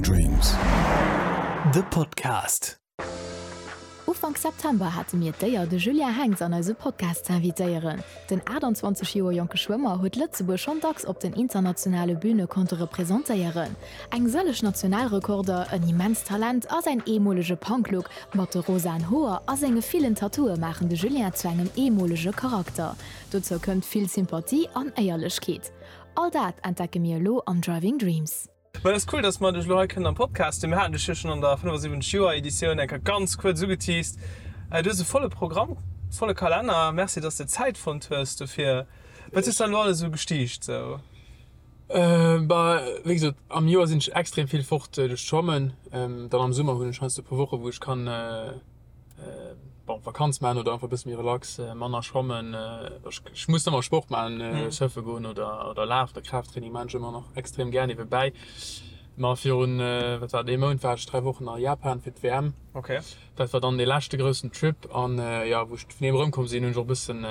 Dreams. De Podcast. Ufank September hate mir d'Éier, de Julien Henx an eise Podcast ze invitéieren. Den 28 Joer jonke Schwëmmer huet Lëtzebuerg schonn dacks op den internationale Büne konnte representéieren. Eng sëlleg Nationalrekorder, en immenst Talent a säin eemolege Punk-Look mat de rosaen Hoer a senge villen Tattooe maachen de Julien zu engem eemolege Charakter. Dozou kënnt vill Sympathie an Éierlechkeet. All dat entdecke mir elo am Driving Dreams. Ma et ass cool, dass mer dech elo hei kënnen am Podcast hunn. Mir haten dech jo schonn an der 75 Joer Editioun eng Kéier ganz kuerz ugeteased. Du hues e volle Programm, volle Kalenner. Merci, dass de Zäit fonnt hues dofir. Wat hues de dann elo alles esou gestiicht sou? Bah, wéi gesot, am Joer sinn ech extrem vill fort duerch d'Schwammen. Dann am Summer hunn ech heiansdo e puer Woche wou ech kann bon, Vakanz maachen oder einfach e bësse méi relax, manner schwammen. Ech muss ëmmer Sport maachen, surfe goen oder oder lafen oder Kraafttraining maachen ech ëmmer nach extrem gär niewebäi. Ma virun, wat war et, ee Mount war ech 3 Wochen a Japan fir d'WM. Okay. Dat war dann dee leschte groussen Trip an jo, wou ech vun deem erëmkomm sinn, hunn ech och e bëssen,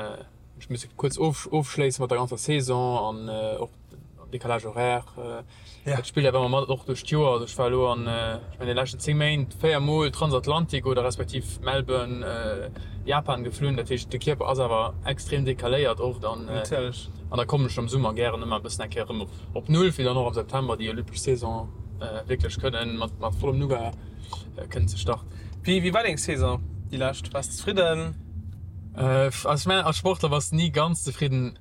ech misse kuerz ofschléisse mat der ganzer Saison an och Décalage horaire. Dat spillt awer ëmmer mat, och duerch d'Joer. Also ech war elo an, ech mengen, de leschten 10 Méint 4 Mol Transatlantik oder respektiv Melbourne, Japan geflunn. Dat heescht, de Kierper ass awer extrem decaléiert oft an an da kommen ech am Summer gären ëmmer e bëssen eng Kéier erëm op Null, fir dann och am September déi olympesch Saison wierklech kënnen mat mat vollem Nougat kënnen ze starten. Wéi war deng Saison déi lescht? Waars de zefridden? Also ech mengen, als Sportler bass de ni ganz zefridden.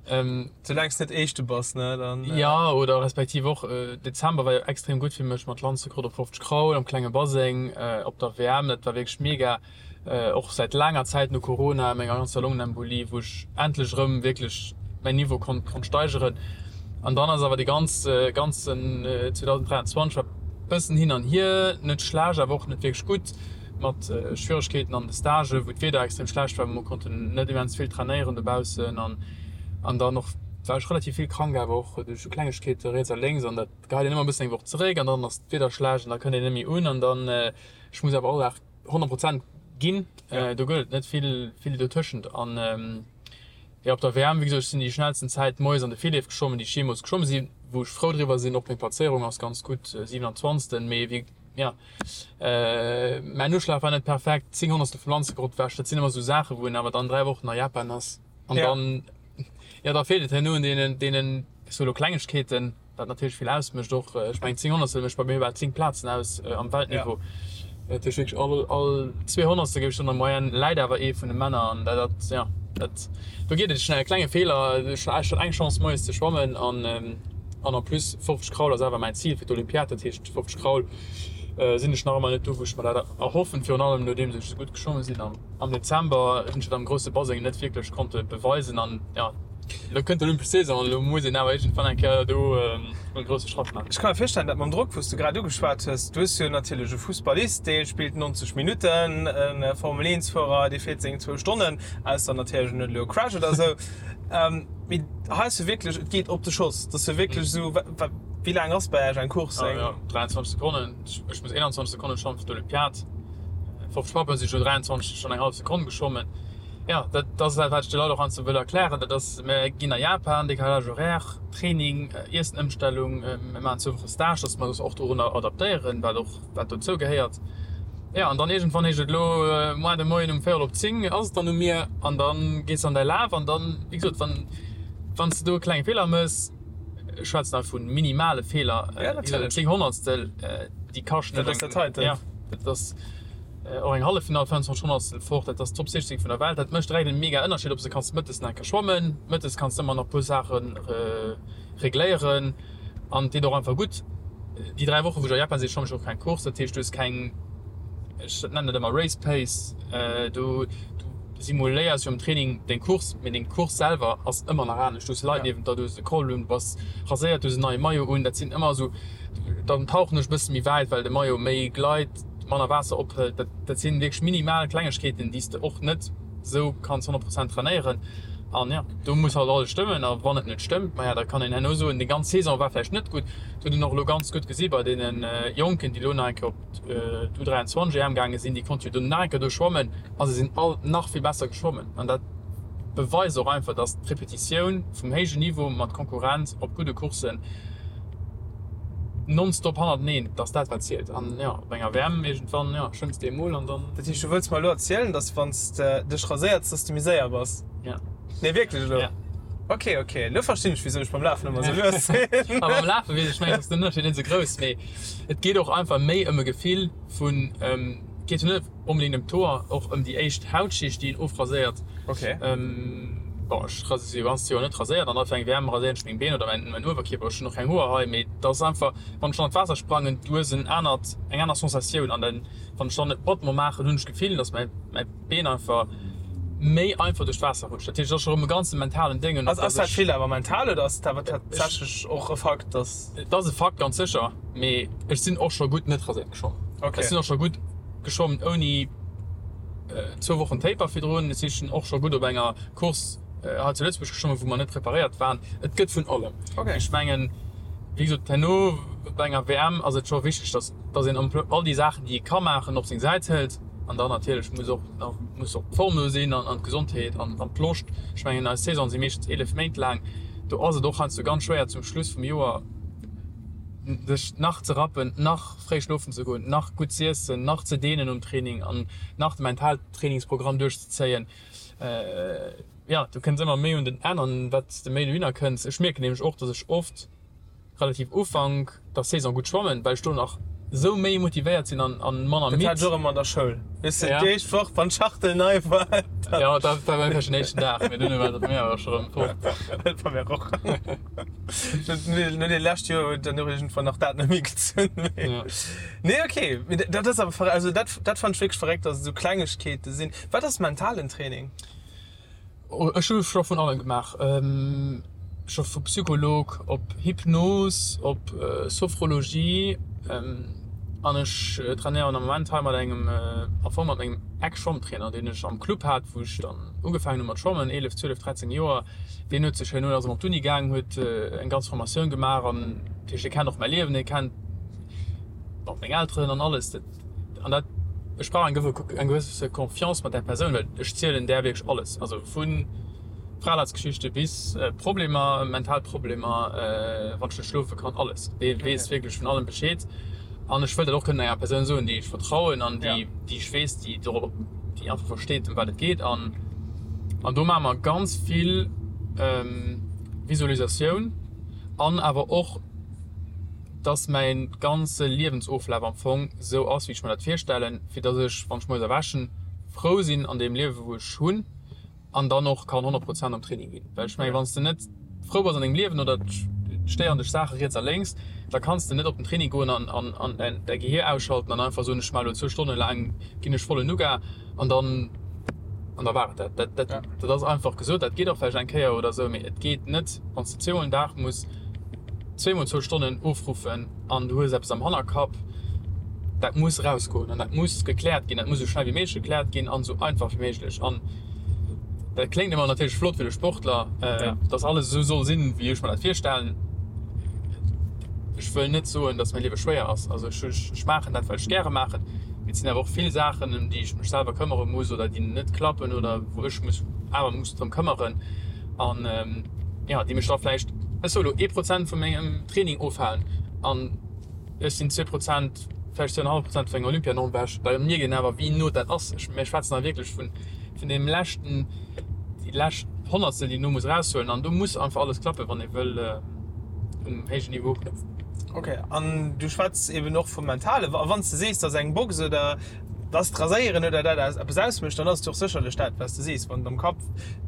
Soulaang s de net Éischte bass, ne, dann. Jo, oder respektiv och, Dezember war jo extrem gutt fir mech mat Landsrekord op 50 Kraul am klenge Baseng op der WM. Dat war wierklech mega. Och säit laanger Zäit no Corona, menger ganzer Longenembolie, wou ech endlech erëm wierklech mäin Niveau konnt konnt steigeren. An dann ass awer dee ganz ganzen 2023 war bëssen hin an hier, net schlecht, awer och net wierklech gutt, mat Schwieregkeeten an de Stagen, wou d'Wieder extrem schlecht war, mer konnten net immens vill trainéieren dobaussen an An dann och war ech relativ vill krank, awer och duerch sou Klengegkeete riets a lénks an dat geheit een ëmmer e bëssen eng Woch zeréck an dann ass d'Wieder schlecht an da kënnt een net méi un an dann, ech muss awer all Dag 100 Prozent ginn, do gëtt et net vill, vill dotëschent. An jo, op der WM, wéi gesot, ech sinn déi schnellsten Zäit moies an de Virleef geschwommen, déi ech jeemools geschwomme sinn, wou ech frou driwwer sinn. Och meng Plazéierung ass ganz gutt, 27. Mee wéi, jo, mäin Uschlag war net perfekt, 10 Honnertstel vum Lanzegrott ewech, dat sinn ëmmer sou Saachen, wou een awer dann 3 Wochen a Japan ass. An Ja. dann, ja, da feelt et herno un deenen, deenen, ech soe lo Klengegkeeten, wat natierlech vill ausmécht och. Ech mengen, 10 Honnertstel mécht bei mir bal 10 Plazen aus am Weltniveau. Dat heescht wierklech all, all zwee Honnertstel, géif ech soen, an der Moyenne läit awer ee vun de Männer. An dat, dat, ja, dat, do geet et schnell. E klenge Feeler, ech hat eng Chance moies ze schwammen an, an en plus 50 Kraul ass awer mäin Zil fir d'Olympiad. Dat heescht 50 Kraul sinn ech nach ëmmer net do, wou ech mer dat erhoffen, virun allem nodeems ech esou gutt geschwommen sinn am. Am Dezember hunn ech et am grousse Baseng net wierklech konnte beweisen an jo, elo kënnt d'Olympesch Saison an elo muss een awer iergendwann eng Kéier do e grousse Schratt maachen. Ech ka mir virstellen, dat mam Drock, wou s de grad ugeschwat hues, du hues jo natierlech e Fussballist, dee spillt 90 Minutten, e Formel-Eent-Fuerer, dee fiert seng zwou Stonnen, ausser natierlech en huet elo e Crash oder esou. Mee hei ass jo wierklech, et geet op de Schoss, et ass jo wierklech esou, wéi laang ass bei Iech eng Course? Eng 23 Sekonnen, ech muss 21 Sekonnen schwammen fir d'Olympiad. 50 Pappen si scho 23 schonn eng hallef Sekonn geschwommen. Jo, dat ass dat, wat ech de Leit och heiansdo wëll erklären. Dat ass, mir ginn a Japan, Décalage horaire, Training, Iessenëmstellung, mir maachen zwou Woche Stage, dass mer eis och dorunner adaptéieren, wat och, wat dozou gehéiert. Jo, an dann iergendwann heescht et elo moar de Moien um véierel op 10 ass et dann u mir an da gees de an däi Laf an dann, wéi gesot, wann, wann s de do e klenge Feeler méchs, Ech schwätzen hei vu minimale Feeler, Ja, natierlech. 10 Honnertstel, déi kaschten. Dat ass der Title. Ja, dat ass och eng Halleffinall, 25 Honnertstel fort, dat ass d'Top 16 vun der Welt. Dat mécht direkt en mega Ënnerscheed, ob s de kanns mëttes nach eng Kéier schwammen, mëttes kanns de ëmmer nach e puer Saache regléieren an et deet och einfach gutt. Déi 3 Woche wou ech a Japan sinn, schwamm ech och keng Course, dat heescht du hues keng, ech nennen dat ëmmer Race Pace, du simuléiers jo am Training deng Course, mee deng Course selwer ass ëmmer nach anescht. Du hues Leit niewent der, du hues e Col un, du bass raséiert, du hues en neie Maillot un. Dat sinn ëmmer esou, dann tauchen ech e bësse méi wäit, well de Maillot méi gleit, manner Waasser ophëlt. Dat, dat sinn wierklech minimal Klengegkeeten, déi s de och net esou kanns 100 Prozent trainéieren. An jo, do muss halt alles stëmmen. A wann et net stëmmt, maja, da kann een herno soen, déi ganz Saison war vläicht net gutt. Dat huet een och elo ganz gutt gesi bei deene Jonken, déi elo nach eng Kéier op. d'U23 EM gaange sinn, déi konnte jo do nach eng Kéier do schwammen a se sinn all nach vill besser geschwommen. An dat beweist och einfach, dass d'Repetitioun vum héijen Niveau mat Konkurrenz op gudde Courssen. Nonstop hannerteneen, dass dat wat zielt. An jo, op enger WM iergendwann, jo, schwëmms de emol an dann. Dat heescht, du wëlls mer elo erzielen, dass wann s de dech raséiers, dass de méi séier bass? Ja. Nee, wierklech elo? Ja. Ok, ok, elo verstinn ech, wisou ech beim Lafen ëmmer esou lues sinn. A beim Lafe weess ech, mengen ech, ass den Ënnerscheed net esou grouss, mee et geet och einfach méi ëm e Gefill vun, et geet jo net onbedéngt ëm d'Hoer, och ëm déi éischt Hautschicht, déi een ofraséiert. Ok. Bon, ech si jo ganz Joer net raséiert an da fir eng WM raséieren ech meng Been oder mäin Uewerkierper. Ech hunn och keng Hoer hei, mee et ass einfach, wann ech dann an d'Waasser sprangen, du hues en anert, eng aner Sensatioun an dann, wann ech dann e Battement maachen, hunn ech d'Gefill, dass mäi mäi Been einfach méi einfach duerch d'Waasser rutscht. Dat heescht, et ass scho rëm e ganze mentalen Déng an och, Ass dass dat vill awer mental oder ass et awer tatsächlech och e Fakt, dass. Et ass e Fakt, ganz sécher, mee ech sinn och scho gutt net raséiert geschwommen. Ech sinn och scho gutt geschwommen ouni. zwou Wochen Taper virdrun. Ech si och scho gutt op enger Course hei zu Lëtzebuerg geschwommen, wou mer net preparéiert waren. Et gëtt vun allem. Ech mengen, wéi gesot, herno bei enger WM ass et scho wichteg, dass dass een all déi Saachen, déi ee ka maachen, op seng Säit hëlt. An dann natierlech muss och nach muss och d'Form do sinn an d'Gesondheet an d'Loscht. Ech mengen, eis Saison si meeschtens 11 Méint laang. Do ass et och heiansdo ganz schwéier zum Schluss vum Joer sech nach ze rappen, nach fréi schlofen ze goen, nach gutt z'iessen, nach ze dehnen nom Training an nach de Mentaltrainingsprogramm duerchzezéien. Jo, du kënns ëmmer méi un den Enn an wat s de méi dohinner kënns. Ech mierken nämlech och, dass ech oft relativ Ufank der Saison gutt schwammen, well ech do nach esou méi motivéiert sinn an manner midd. Dat hat ech och ëmmer an der Schoul. Weess de, déi éischt Woch, wann d'Schachtel nei war, dann. Jo, dat war bei mir vläicht den éischten Dag, mee duerno war dat mir awer scho rëm fort. Dat war mir och. No deene leschte Joer huet dann och iergendwann nach dat net méi gezunn. Nee, okay. Mee dat ass awer verréckt. Also dat, dat fannen ech wierklech verréckt, dass et esou Klengegkeete sinn. Wat ass mentalen Training? Ech hu scho vun allem gemaach. Scho vu Psycholog op Hypnos op Sophrologie. An ech trainéieren am Moment hei mat engem, am Fong mat mengem Ex-Schwammtrainer, deen ech am Club hat, wou ech dann ugefaangen hu mat schwammen, 11, 12, 13 Joer. Deen huet sech herno, ass erëm op d'Uni gaang, huet eng ganz Formatioun gemaach an dat heescht, e kennt och mäi Liewen, e kennt och meng Elteren an alles. Dat an dat, ech brauch eng eng gewësse Confiance mat där Persoun, well ech zielen där wierklech alles, also vu Fralaatsgeschichte bis Problemer, mental Problemer, wann ech net schlofe kann, alles. Dee weess wierklech vun allem Bescheed an ech wëll dat och kënnen enger Persoun soen, déi ech vertrauen an déi, déi ech weess, déi dorop, déi einfach versteet, ëm wat et geet an an do maache mer ganz vill Visualisatioun an awer och, dass mäin ganze Liewensoflaf am Fong sou ass, wéi ech mer dat virstellen, fir dass ech, wann ech moies erwächen, frou sinn an deem Liewe wou ech hunn an dann och kann 100 Prozent am Training ginn. Well ech mengen, wann s de net frou bass an dengem Liewen oder et stéieren dech Saache riets a lénks, da kanns de net op den Training goen an an däi Gehier ausschalten an einfach soen, ech maache elo zwou Stonne laang ginn ech vollen Nougat an dann an da war et dat. Dat dat dat ass einfach gesot, dat geet och vläicht eng Kéier oder esou, mee et geet net, wann s de zweemol den Dag muss zweemol zwou Stonnen ofruffen an du hues eppes am Hannerkapp, dat muss erausgoen an dat muss gekläert ginn, dat muss esou schnell wéi méiglech gekläert ginn an esou einfach wéi méiglech. An dat kléngt ëmmer natierlech flott fir de Sportler, dass alles esou soll sinn, wéi ech mer dat virstellen. Ech wëll net soen, dass mäi Liewe schwéier ass. Also ech, ech maachen dat, wat ech gäre maachen, mee et sinn awer och vill Saachen, ëm déi ech mech selwer këmmere muss oder déi net klappen oder wou ech mech awer muss drëm këmmeren. An jo, déi mech da vläicht, ech soe lo, ee Prozent vu mengem Training ofhalen an ech sinn 2 Prozent, vläicht 2,5 Prozent vun enger Olympianorm ewech, da mierkt een awer, wéi no dat ass. Ech, mir schwätzen hei wierklech vun, vun deem leschten, déi lescht Honnertstel, déi een do muss eraushuelen. An do muss einfach alles klappen, wann ee wëll um héijen Niveau bleiwen. Ok, an du schwätz eben och vum Mentale. A wann s de sees, dass eng Box oder dass d'Raséieren oder dat aus eppes ausmécht, dann ass et jo och sécherlech dat, wat s de sees, wann et am Kapp,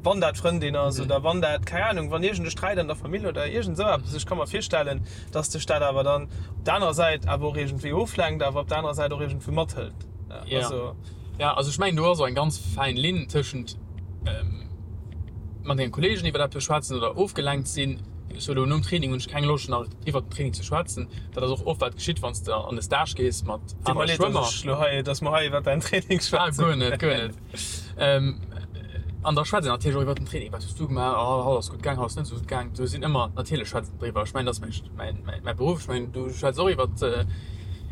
wann dat d'Frëndin ass oder wann dat, keng Anung, wann iergend e Sträit an der Famill oder iergend esou eppes. Ech ka mer virstellen, dass dech dat awer dann op der anerer Säit awer och iergendwéi oflenkt, awer op der anerer Säit och iergendwéi mathëlt. Ja. Also. Ja, also ech mengen, do ass och eng ganz fäin Linn tëschent mat denge Kolleegen iwwer eppes schwätzen oder ofgelenkt sinn. Ech soe lo, nom Training hunn ech keng Loscht nach iwwer den Training ze schwätzen. Dat ass och oft wat geschitt, wann s de an de Stage gees mat Deet mer anere leed, dass Schwëmmer. ech lo hei, dass mer hei iwwer däin Training Ah, schwätzen. guer net, guer net. An da schwätzt een natierlech och iwwer den Training, Wat hues du gemaach? Oh, haut ass gutt gaang, haut ass net esou gutt gaang. Do sinn ëmmer, natierlech schwätzt een driwwer. Ech mengen, dat ass mäin, mäi Beruff. Ech mengen, du schwätz och iwwer,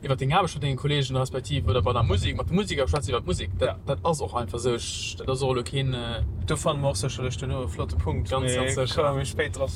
iwwer deng Aarbecht mat denge Kolleegen respektiv oder bei der Musek, mat de Museker schwätz iwwer d'Musek. Dat, dat ass och einfach esou. Ech, dat ass och elo keen. Do fanne mer och sécherlech duerno e flotte Punkt, Ganz, ganz mee sécher. komme mir méi spéit drop.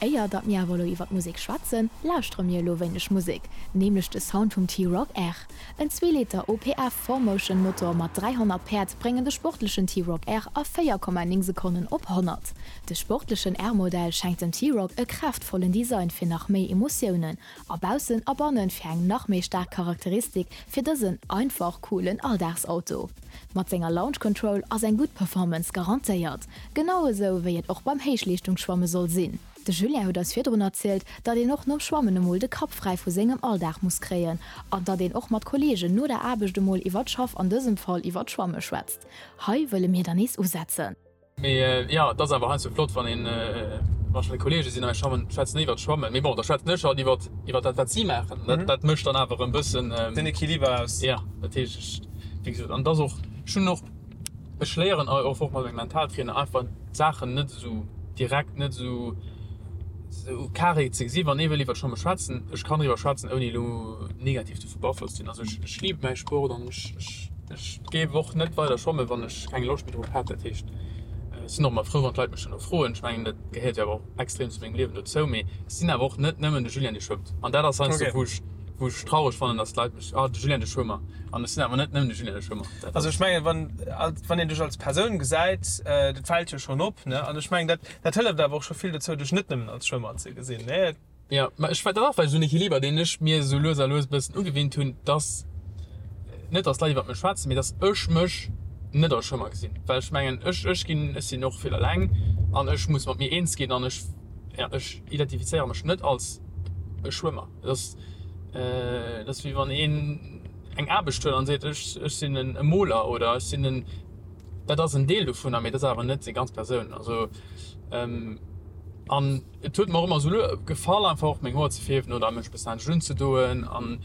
Éier datt mir awer elo iwwer d'Musek schwätzen, lauschtere mir elo wéineg Musek, nämlech de Sound vum T-Roc R. En Zweeliter OPF 4Motion Motor mat 300 Päerd bréngen de sportlechen T-Roc R a 4,9 Sekonnen op 100. De sportlechen R-Modell schenkt dem T-Roc e kraaftvollen Design fir nach méi Emotiounen a baussen a bannen fir eng nach méi staark Charakteristik fir dësen einfach coolen Alldagsauto. Mat senger Launch Control ass eng gutt Performance garantéiert, genau esou wéi et och beim Héichleeschtungsschwamme soll sinn. De Julien huet eis virdrun erzielt, datt een och nom Schwammen emol de Kapp fräi vu sengem Alldag muss kréien an datt een och mat Kolleegen no der Aarbecht emol iwwer d'Schaff, an dësem Fall iwwer d'Schwamme schwätzt. Hei wëlle mir dann nees usetzen. Mee jo, et ass awer heiansdo flott, wann een, wann ech mat Kolleege sinn a mir schwammen, schwätzen iwwert d'Schwammen. Mee bon, da schwätzen ech halt iwwert, iwwert dat, wat si maachen. Dat, dat mécht dann awer e bëssen. Den Equiliber aus. Jo, dat heescht, ech, wéi gesot, an et ass och, ech hunn och, ech léieren och mat mengem Mentaltrainer einfach d'Saachen net esou direkt, net esou, esou carré ze gesinn. Wann ee wëll iwwert Schwamme schwätzen, ech kann driwwer schwätzen, ouni elo negativ dovu beaflosst ze sinn. Also ech, ech libe mäi Sport an ech, ech, ech géif och net weider schwammen, wann ech keng Loscht méi drop hätt. Dat heescht, ech sinn och ëmmer frou, wann d'Leit mech duerno froen. Ech mengen, dat gehéiert jo awer och extrem zu mengem Liewen dozou. Mee ech sinn awer och net nëmmen de Julien, dee schwëmmt. An dat ass heiansdo, wou ech, wou ech traureg fannen, dass d'Leit mech, ah, de Julien, de Schwëmmer. An ech sinn awer net nëmmen de Julien, de Schwëmmer. Dat Also ech mengen, wann, wann een dech als Persoun gesäit, dat fält jo schonn op, ne? An ech mengen, dat, dat hëlleft awer och scho vill dozou, dech net nëmmen als Schwëmmer ze gesinn, ne? Jo, mä ech, dat ass vläicht esou en Equiliber, deen ech mir esou lues a lues e bëssen ugewinnt hunn, dass, net dass d'Leit iwwert mech schwätzen, mee dass ech mech net als Schwëmmer gesinn. Well ech mengen, ech, ech ginn, ech sinn och vill eleng an ech muss mat mir eens ginn an ech, ja, ech identifizéiere mech net als e Schwëmmer. Dat ass, dat ass wéi wann een eng Aarbecht huet an seet, ech, ech sinn e Moler oder ech sinn en, dat ass en Deel dovunner, mee dat ass awer net seng ganz Persoun. Also, an et huet mer och ëmmer esou gefall einfach och meng Hoer ze fierwen oder mech e bëssen anescht unzedoen an,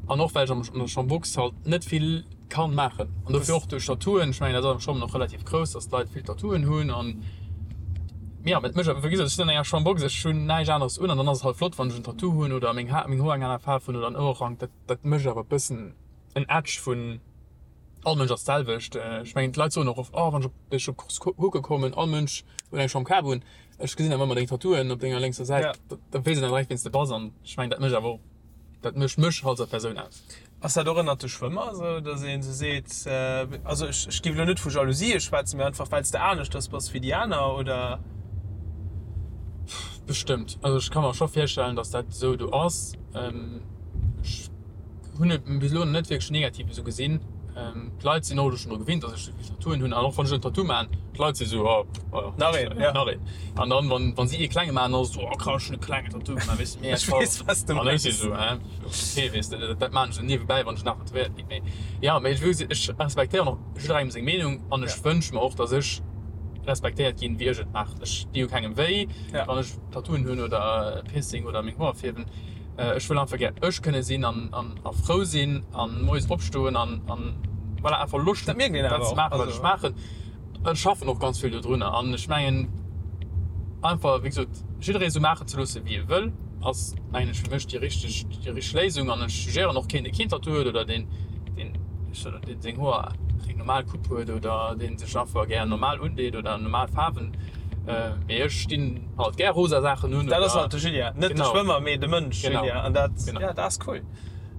an och well ech am an der Chambox halt net vill kann maachen an dofir och duerch Tattooen, ech mengen dat ass am Schwammen och relativ grouss, dass d'Leit vill Tattooen hunn an ja et mécht wéi gesot ech sinn an enger Chambox, ech hunn näischt aneres un an dann ass et halt flott wann ech en Tattoo hunn oder meng Har meng Hoer eng aner Faarf hunn oder en Ouerrank, dat dat mécht awer e bëssen en Edge vun all Mënsch ass d'selwecht. Ech mengen d'Leit soen och oft, oh wann ech op dech op Course kucke kommen, all Mënsch huet eng Chambre Kap un, ech gesinn awer ëmmer deng Tattooen op denger lénkser Säit, da weess een dann direkt wien s de bass an ech mengen dat mécht awer och dat mécht mech als Persoun aus. Ass dat och ënnert de Schwëmmer esou, datt een esou seet, also ech ech géif elo net vu Jalousie schwätzen, mee einfach well s de aneschters bass wéi déi aner, oder? Bestëmmt. Also ech ka mer scho virstellen, datt dat esou do ass. Ech hunn et bis elo net wierklech negativ esou gesinn. D'Leit sinn och elo schonn dru gewinnt, datt ech esou vill Tattooen hunn an och wann ech en Tattoo maachen, d'Leit si sou, oh, oh, Nach een, ja. Nach een. An dann, wann, wann si ee klenge maachen, dann ass et sou, oh krass, ech hunn e klengen Tattoo gemaach, weess de, mee Ech weess, wat s de An ech si sou, hä, okay, weess de, dat maachen ech esou niewebäi, wann ech nach tätowéiert ginn. Mee ja, mee ech wou, ech respektéieren och jidderengem seng Meenung an ech wënsch mer och, datt ech respektéiert ginn, wéi ech et maachen. Ech di jo kengem wéi, wann ech Tattooen hunn oder e Piercing oder meng Hoer fierwen. Ech wëll einfach gär ech kënne sinn an a frou sinn an moies opstoen an an voilà einfach Loscht hunn dat ze maachen wat ech maachen. Ech schaffen och ganz vill dodrunner an ech mengen einfach wéi gesot jidderee sou maachen ze loosse wéi e wëll ass mengen ech fir mech déi richteg déi richteg Léisung an ech jugéieren och keen dee keen Tattoo huet oder deen deen deen seng Hoer eng normal Coupe huet oder deen sech einfach gär normal undeet oder normal Faarwen. Mee ech stinn halt gär rosa Saachen un. Dat ass halt de Julien, net de Schwëmmer, mee de Mënsch Julien. An dat, ja, dat ass cool.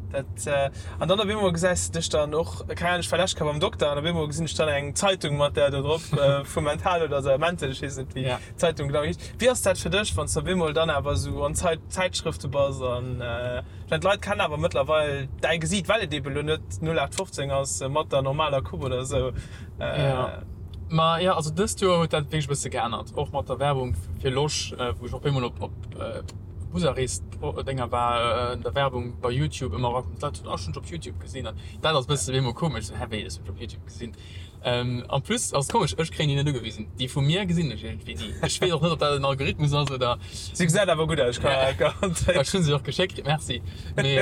Dat, an dann op eemol gesäis de dech dann och, keng Ahnung, ech war lescht Kéier beim Dokter an op eemol gesinn ech dann eng Zeitung mat där do drop vu Mental oder sou, Mental, ech weess net wéi d'Zeitung genau heescht. Wéi ass dat fir dech, wann s de op eemol dann awer esou an Zäitschrëfte bass an, ech mengen d'Leit kennen awer mëttlerweil däi Gesiit, well et eeben elo net 0815 ass mat der normaler Coupe oder sou. Jo, ma jo, also dëst Joer huet dat wierklech e bësse geännert, och mat der Werbung fir Losch, wou ech op eemol op op Busarrees-Dénger war, der Werbung bei Youtube ëmmer erakomm, d'Leit hunn, oh, ech hunn dech op Youtube gesinn an dat ass e bësse op eemol komesch, sou, hä, wéi, ech hunn dech op Youtube gesinn? En plus ass et komesch, ech kréien déi net ugewisen, déi vu mir gesinn ech iergendwéi ni. Ech weess och net, ob dat en Algorithmus ass oder. Si gesäit awer gutt aus, ech kann garantéieren. Ech hunn se och geschéckt kritt, merci. Mee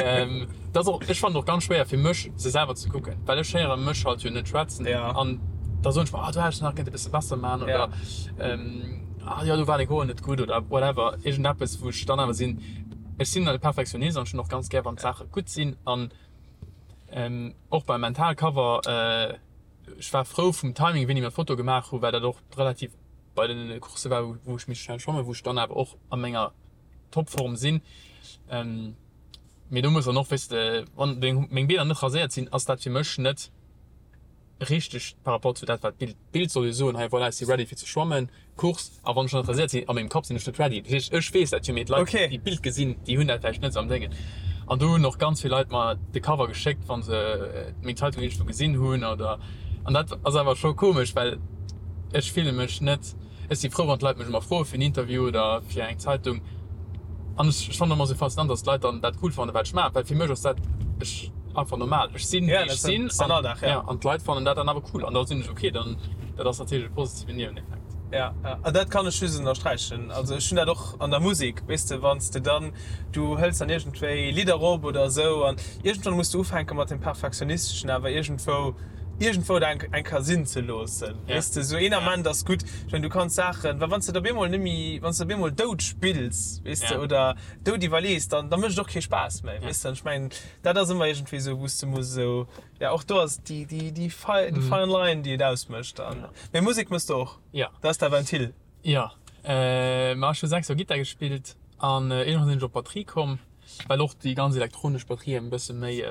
dat ass och, ech fannen et och ganz schwéier fir mech se selwer ze kucken, well ech héiere mech halt jo net schwätzen an da soen ech mer, ah do hätt ech nach kënnte bësse besser maachen oder ah jo do war deng Hoer net gutt oder whatever, iergendeppes wou ech dann awer sinn, ech sinn e Perfektionist an ech hunn och ganz gär wann d'Saache gutt sinn an och beim Mental Cover, ech war frou vum Timing wéini mer d'Foto gemaach hu well dat och relativ. bei den Coursse war, wou ech méi schnell schwammen, wou ech dann awer och a menger Topform sinn. Mee do muss dann och, weess de, wann meng Beener net raséiert sinn, ass dat fir mech net richteg par rapport zu dat wat d'Bild, d'Bild soll jo soen, hei voilà, ech si ready fir ze schwammen, Course, a wann ech net raséiert sinn, a mengem Kapp sinn ech net ready. Dat heescht, ech weess dat jo, mee d'Leit, déi d'Bild gesinn, déi hunn dat vläicht net esou am Déngen. An do hunn och ganz vill Leit mer de Cover geschéckt, wa se meng Zeitung iergendwou gesinn hunn oder, an dat ass awer scho komesch, well ech fille mech net, Ech si frou, wann d'Leit mech emmer froe fir en Interview oder fir eng Zeitung. An ech fannen emmer sou faszinant, dass d'Leit dann dat cool fannen, wat ech maachen, well fir mech ass dat ech einfach normal. Ech sinn, wéi ech sinn, an ja, an d'Leit fannen dat dann awer cool. An da sinn ech ok, dann dat ass natierlech e positiven Nieweneffekt. Ja, ja, an dat kann ech just ënnersträichen. Also ech hunn dat och an der Musek, weess de, wann s de dann, du hëls dann iergendwéi Lidder op oder esou an iergendwann muss de ufänke mat dem Perfektionisteschen awer iergendwou, iergendwou et eng Kéier sinn ze loossen, weess de, esou een Ament ass gutt. Ech mengen, du kanns Saachen, well wann s de et op eemol net méi, wann s de op eemol dout spills, weess de, oder dout iwwerlees, dann da mécht et och kee Spaass méi, weess de. An ech mengen, dat ass ëmmer iergendwéi esou, wou s de muss esou, ja, och do ass déi, déi, déi fine line, déi et ausmécht. An, mee Musek méchs de och? Dat ass däi Ventil? Jo, ma ech hu 6 Joer Gittar gespillt an iergendwann sinn ech op d'Batterie komm, well och déi ganz elektronesch Batterien e bësse méi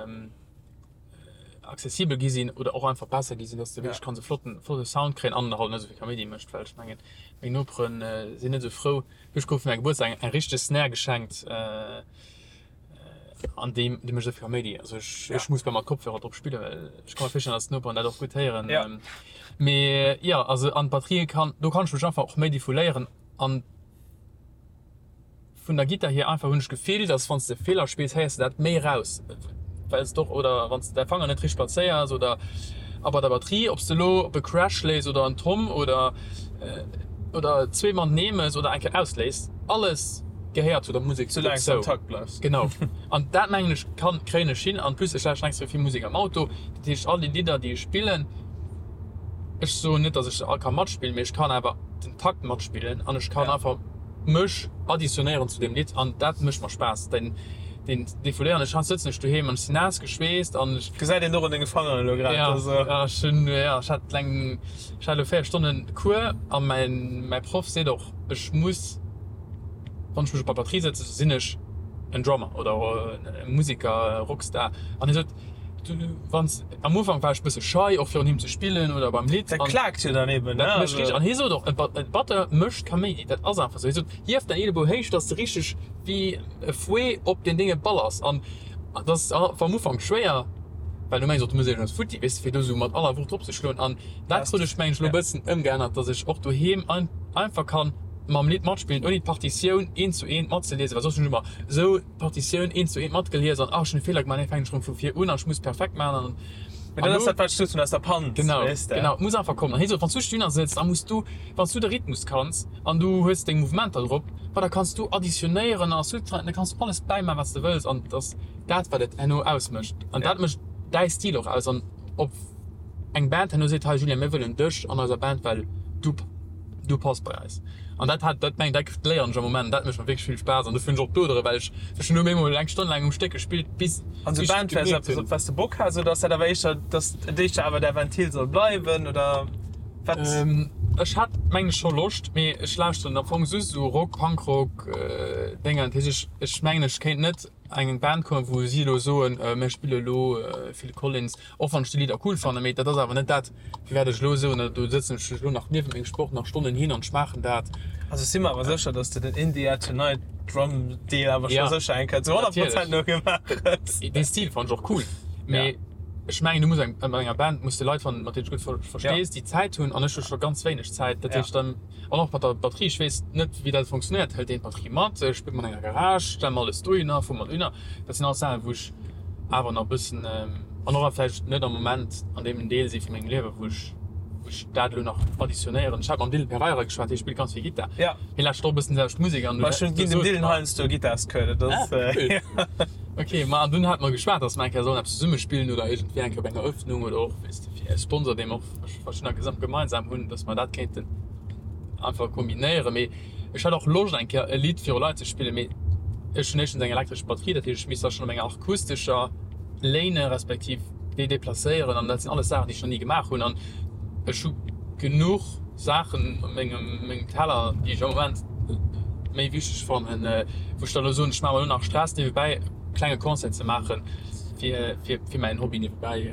accessibel gi sinn oder och einfach besser gi sinn, dass de wierklech kanns e flotten, flotte Sound kréien an halt net esou vill Kaméidi mécht, well ech mengen, meng Nopere sinn net esou frou. Ech krut fir mäi Gebuertsdag eng, eng richteg Snare geschenkt an déi, déi mécht esou vill Kaméidi. Also ech, ech muss bal mat Kopfhörer drop spillen, well ech ka mer virstellen, dass d'Noperen dat och gutt héieren. Mee jo, also an d'Batterie kann, do kann ech mech einfach och méi defouléieren an. Vun der Gittar hier einfach hunn ech d'Gefill, dass wann s de Feeler spills, héiers de dat méi raus, well s de och, oder wann s de däi Fanger net richteg plazéiers oder a bei der Batterie, ob s de elo op e Crash léis oder en Tom oder oder zwee matenee mëss oder eng Kéier ausléis, alles gehéiert zu der Musek Soulaang s de am dozou. Takt bleifs. Genau. An dat mengen ech kann, kréien ech hin. An plus ech lauschteren extrem vill Musek am Auto, dat heescht all déi Lidder déi ech spillen, ech soen net, dass ech se all ka matspillen, mee ech kann awer den Takt matspillen an ech kann einfach mech additionnéieren zu deem Lidd an dat mécht mer Spaass, den den Defouléieren. Ech sëtzen ech doheem an ech sinn naass geschweesst an ech. Gesäit een och un denge Fangeren elo grad. Ja, ja, ech hunn, ja, ech hat eng, ech hat elo 4 Stonnen Cours a mäin mäi Proff seet och, ech muss, wann ech mech op der Batterie sëtzen, sinn ech en Drummer oder e Museker, e Rockstar an hie sot, Du, wanns, am Ufank war ech bësse schei, och virun him ze spillen oder beim Lidd. Dat klaakt jo dann eben, ne? Dat mécht richteg, an hie sot och, e Batteur mécht Kaméidi, dat ass einfach esou. Hie sot, hief däin Eelebou héich, dass de richteg wéi e Fouet op deen Dénge ballers. An dat ass am Ufank schwéier, well du mengs och, du muss iergendeppes futti, weess de, fir do esou mat aller Wucht drop ze schloen. An dat krut ech, meng ech, elo e bëssen ëmgeännert, dass ech och doheem einfach kann mam Lidd matspillen, ouni d'Partitioun eent zu eent matzeliesen, well soss hunn ech ëmmer esou. D'Partitioun eent zu eent matgelies an, ah, ech hunn e Feeler gemaach, nee, fänken ech erëm vu vir un an ech muss perfekt maachen an. Mee dat ass dat, wat ech gesot hunn, aus der Panz, Genau, weess de. genau, et muss einfach kommen. An hie sot, wann s du dohinner sëtz, da muss du, wann s du de Rhythmus kanns an du hues deng Mouvementer drop, ma da kanns du additionéieren a subtrahieren, da kanns du alles bäimaachen, wat s de wëlls an et ass dat, wat et herno ausmécht an dat mécht däi Stil och aus an ob eng Band herno seet, hei Julien, mir wëllen dech an eiser Band, well du. Du pass bei eis. An dat hat, dat meng, dat léieren ech am Moment, dat mécht mer wierklech vill Spaass an dofir hunn ech och d'Odere, well ech, ech hunn elo méi mol eng Stonn laang um Stéck gespillt, bis, An bis sou ech Band wär gemierkt eppes, hunn. op wat s de Bock has, oder ass dat awer éischter, dass et éischter awer däi Ventil soll bleiwen, oder wat? Ech hätt mengen ech scho Loscht, mee ech lauschteren am Fong just esou Rock, Punkrock, Dénger. Dat heescht, ech, ech mengen ech kéint net an eng Band kommen, wou si elo soen, mir spille elo Phil Collins. Och wann ech déi Lidder cool fannen, mee dat ass awer net dat, firwat ech elo soen, do sëtzen ech elo nach niewent mengem Sport nach Stonnen hin an ech maachen dat. Also ech si mer awer sécher, dass de den In the Air Tonight Drum Deel awer scho sécher eng Kéier zu 100 Prozent nogemaach hues. Dee Stil fannen ech och cool, mee ech mengen du muss eng, an enger Band muss de Leit fannen, mat deenen s de gutt verstees, déi Zäit hunn, an ech hu scho ganz wéineg Zäit. Dat heescht dann, an och mat der Batterie, ech weess net wéi dat funktionéiert, hëlt een d'Batterie mat, spillt mer an enger Garage, stelle mer alles dohinner, fuere mer dohinner, dat sinn alles Saachen wou ech awer nach e bëssen an och vläicht net am Moment an deem Deel si vu mengem Liewe wou ech wou ech dat elo nach additionéieren. Ech hat mam Dylan Pereira geschwat, hie spillt ganz vill Gittar. Ja. Hie lauschtert och e bëssen déi selwecht Musek an Ma ech hunn ginn dem Dylan heiansdo e Gittarscours, dat ass. Ah, cool. Ok, ma an dunn hate mer geschwat, datt mer eng Kéier sollen eppes zesumme spillen oder iergendwéi eng Kéier op enger Eröffnung oder och, weess de, fir e Sponsor, dee mer och verschiddener gesam gemeinsam hunn, datt mer dat kéinten einfach kombinéieren. Mee Ech hätt och Loscht eng Kéier e Lidd viru Leit ze spillen, mee ech hunn éischtens eng elektresch Batterie, dat heescht ech misst da schonn op enger akustescher léinen, respektiv déi deplacéieren an dat sinn alles Saachen déi ech nach ni gemaach hunn an ech hu genuch. Saachen op mengem mengem Teller, déi ech am Moment méi wichteg fannen, wou ech dann elo soen, ech maache mer elo nach Stress niewebäi e klenge Concert ze maachen, fir fir fir mäin Hobby niewebäi.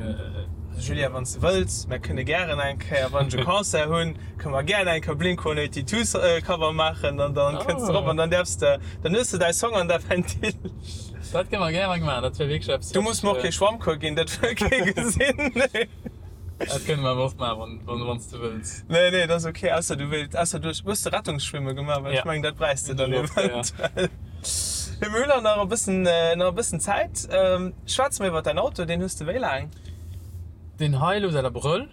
Julien, wann s de wëlls, mär kënne gären eng Kéier, wann ech e Concert hunn, kënne mer gären eng Kéier Blink 182 Cover maachen an dann kënns de erop an dann däerfs de, dann hues de däi Song an däi Ventil. Dat kënne mer gäre maachen, dat wär wierklech eppes, Du muss mer och kee Schwammcours ginn, dat wëll kee gesinn. Dat kënne mer awer och maachen, wann, wann s de wëlls. Nee, nee, dat ass ok, ausser du wéilt, ausser du hues de Rettungsschwimme gemaach, well ech mengen, dat bräichs de dann eventuell. Mee mir hunn nach e bëssen, nach e bëssen Zäit. Schwätz mer iwwer däin Auto, deen hues de wéi laang? Deen hei elo säit Abrëll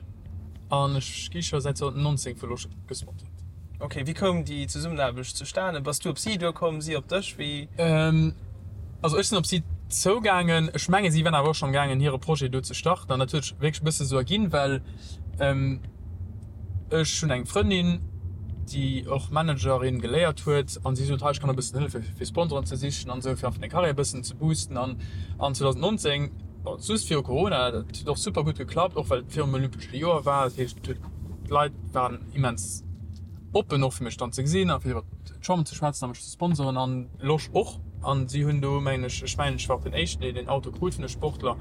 an ech gi scho säit 2019 vu Losch gesponsert. Ok, wéi koum déi Zesummenaarbecht zustane? Bass du op si duerkomm, si op dech, wéi? Also ech sinn op si zougaangen. Ech menge si waren awer och scho amgaangen hire Projet do ze starten an dat huet sech wierklech e bësse sou erginn, well ech hunn eng Frëndin, déi och Managerin geléiert huet an si sot, hei ech kann der e bëssen hëllefe fir Sponsoren ze sichen an esou fir einfach deng Karriär e bëssen ze boosten an an 2019, bon just viru Corona, dat huet och super gutt geklappt, och well et virum olympesche Joer war, dat heescht d'Leit waren immens oppen och fir mech dann ze gesinn a fir iwwer d'Chamber ze schwätzen a mech ze sponsoren an Losch och. An si hunn do mengen ech, ech mengen ech war och den éischten deen den Auto krut vun de Sportler.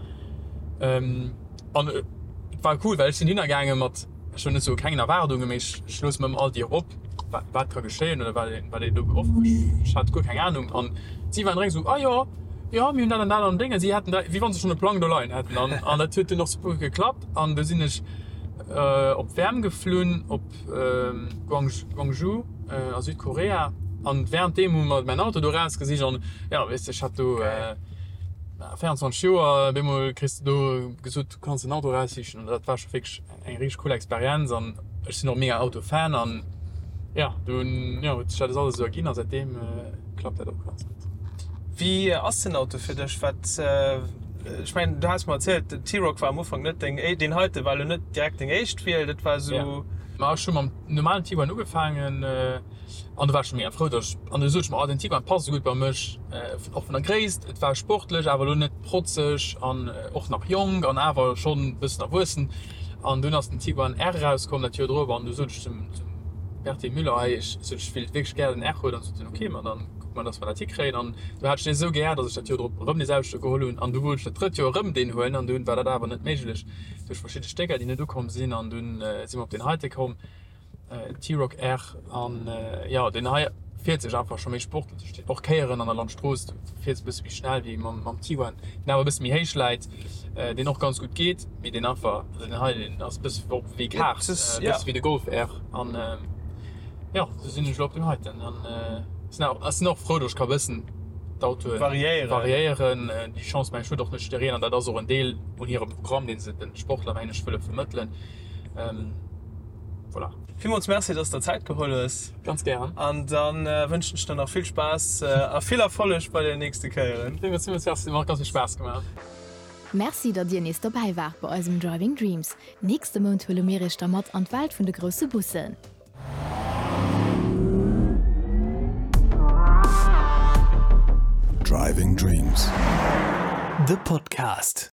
An et war cool, well ech sinn hinner gaange mat, ech wëll net soe kengen Erwaardungen, mee ech ech loosse mer ëmmer all Dier op, wat wat ka geschéien oder wat een wat een do off, ech hat guer keng Anung. An si waren direkt esou, ah jo, jo mir hunn dat an dat an Déng. A si haten da wéi wann se schonn e Plang do leien hätten. An an dat huet dunn och super gutt geklappt. An du sinn ech op d'Wäerm geflunn, op Gwangju a Südkorea an währenddeem hu mer mäin Auto do erausgesicht an jo weess de ech hat do 24 Joer, op eemol kriss de do gesot du kanns den Auto eraussichen an dat war scho wierklech eng richteg cool Experienz an ech sinn och mega Autofan an jo dunn jo huet sech dat alles esou erginn a säitdeem klappt dat och ganz gutt. Wéi ass den Auto fir dech? Wat Ech mengen, du has mer erzielt, den T-Roc war am Ufank net deng, deen heite war elo net direkt deng éischt Wiel, dat war esou. Ma ech hu mam normalen Tiguan ugefaangen an do war ech scho mega frou, datt ech, an du sot ech mer, oh den Tiguan passt esou gutt bei mech, och vun der Gréisst, et war sportlech, awer elo net protzeg an och nach jonk an awer schonn e bëssen erwuessen. An dunn ass den Tiguan R erauskomm dat Joer drop an du sot ech zum Berthe Müller, hei ech sot ech wéilt wierklech gär den R huelen an sot en, ok, ma dann. Kucke mer, dass mer dat hikréien. An du hat ech dee esou gär, dass ech dat Joer drop erëm dee selwechte geholl hunn. An du wollt ech dat drëtt Joer erëm deen huelen. An dunn war dat awer net méiglech duerch verschidde Stécker, déi net ukomm sinn. An dunn si mer op deen heite komm, T-Roc R. An jo, deen hei fiert sech einfach scho méi sportlech. Och Kéieren an der Landstrooss, du fiers e bësse méi schnell wéi mam Tiguan, deen awer e bësse méi héich läit, deen och ganz gutt geet, mee deen einfach, also deen hei, deen ass e bësse och wéi Kart, e bësse wéi de Golf R. An Jo, sou sinn ech elo op deem heiten an sinn och frou, datt ech ka bëssen d'Autoe variéieren. Déi Chance mengen ech huet och net jiddereen an dat ass och en Deel un hirem Programm, dee se de Sportler mengen ech wëlle vermëttelen. Voilà. Villmools Merci, dass de der Zäit geholl hues. Ganz gären. An da wënschen ech der nach vill Spaass a vill Erfolleg bei den nächste Kéieren. Villmools Merci, huet mer och ganz vill Spaass gemaach. Merci, datt dir nees dobäi waart bei eisem Driving Dreams. Nächste Mount huele mir iech da mat an d'Welt vun de grousse Bussen. Driving Dreams, de Podcast.